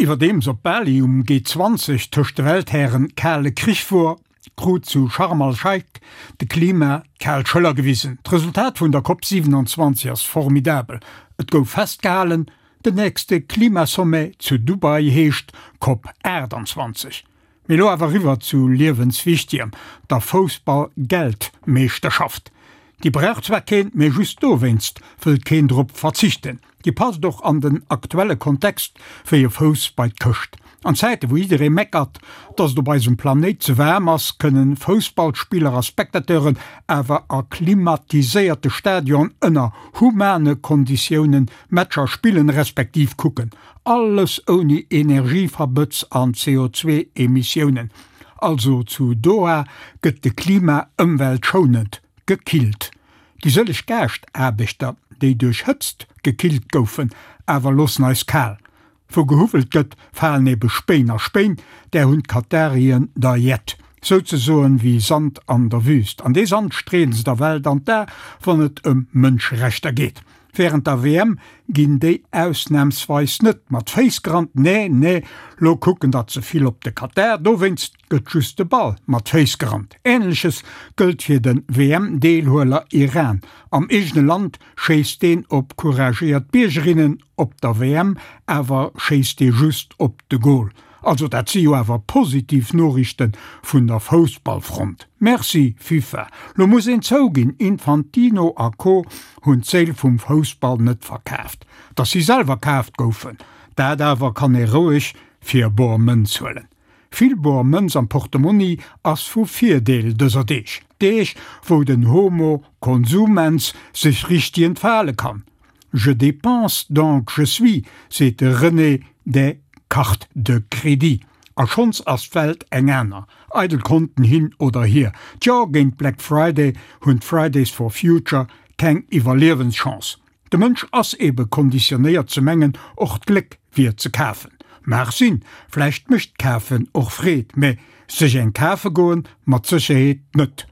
Iwwerdeems op Bali um G20 tëscht de Welthären kale Krich wor, krut zu Sharm al-Sheikh de Klima d'kal Schëller gewisen. D'Resultat vun der Cop 27 ass formidabel, et gouf festgehalen, den nächste Klimasommet zu Dubai heescht Cop 28. Mee lo awer riwwer zu liewenswichtegem, der Foussball-Geltmeeschterschaft. Déi brauch zwar keen, mee just dowéinst wëllt keen drop verzichten. Déi passt och an den aktuelle Kontext wéi e Fouss bei d'Këscht. An Zäite wou jidderee meckert, dass et op eisem Planéit ze waarm ass, kënnen Foussballspiller a Spectateuren awer a klimatiséierte Stadionen ënner humane Konditiounen Matcher spillen respektiv kucken. Alles ouni Energieverbëtz an CO2-Emissiounen. Also zu Doha gëtt de Klima ëmweltschounend gekillt. Déi sëlleg Gaascht-Aarbechter, déi duerch Hëtzt gekillt goufen, awer loossen eis kal. Wou gehuwwelt gëtt, falen ebe Spéin a Spéin, där hunn d'Katarien der jett. Souzesoen wéi Sand an der Wüst. An dee Sand streeën se der Welt an d'A, wann et ëm Mënscherechter geet. Während der WM ginn déi ausnahmsweis net mat Féiss gerannt, nee, nee, lo kucken der ze vill op de Katar, dowéinst gëtt just de Ball mat Féiss gerannt. Ähnleches gëllt fir de WM-Deelhueler Iran. Am eegene Land schéisst deen op couragéiert Biergerinnen, op der WM awer schéisst dee just op de Goal. Also dat si jo awer positiv Noriichten vun der Foussballfront. Merci FIFA. Lo muss een zouginn, Infantino a Co hunn d'Séil vum Foussball net verkaaft. Datt si selwer kaaft goufen, dat awer kann ee roueg fir bor Mënz huelen. Vill bor Mënz am Portemonni ass vu Virdeel dëser Deeg. Deeg wou den Homo consumens sech richteg entfale kann. Je dépense donc je suis, seet de René des cartes de crédit. A schonns ass d'Welt eng aner. Eidel Konten hin oder hier, tjo, géint Black Friday hunn d'Fridays for Future keng Iwwerliewenschance. De Mënsch ass ebe konditionéiert ze mengen, och d'Gléck wier ze kafen. Mag sinn, vläicht mécht d'Kafen och Freed, mä sech eng kafe goen mat Sécherheet net.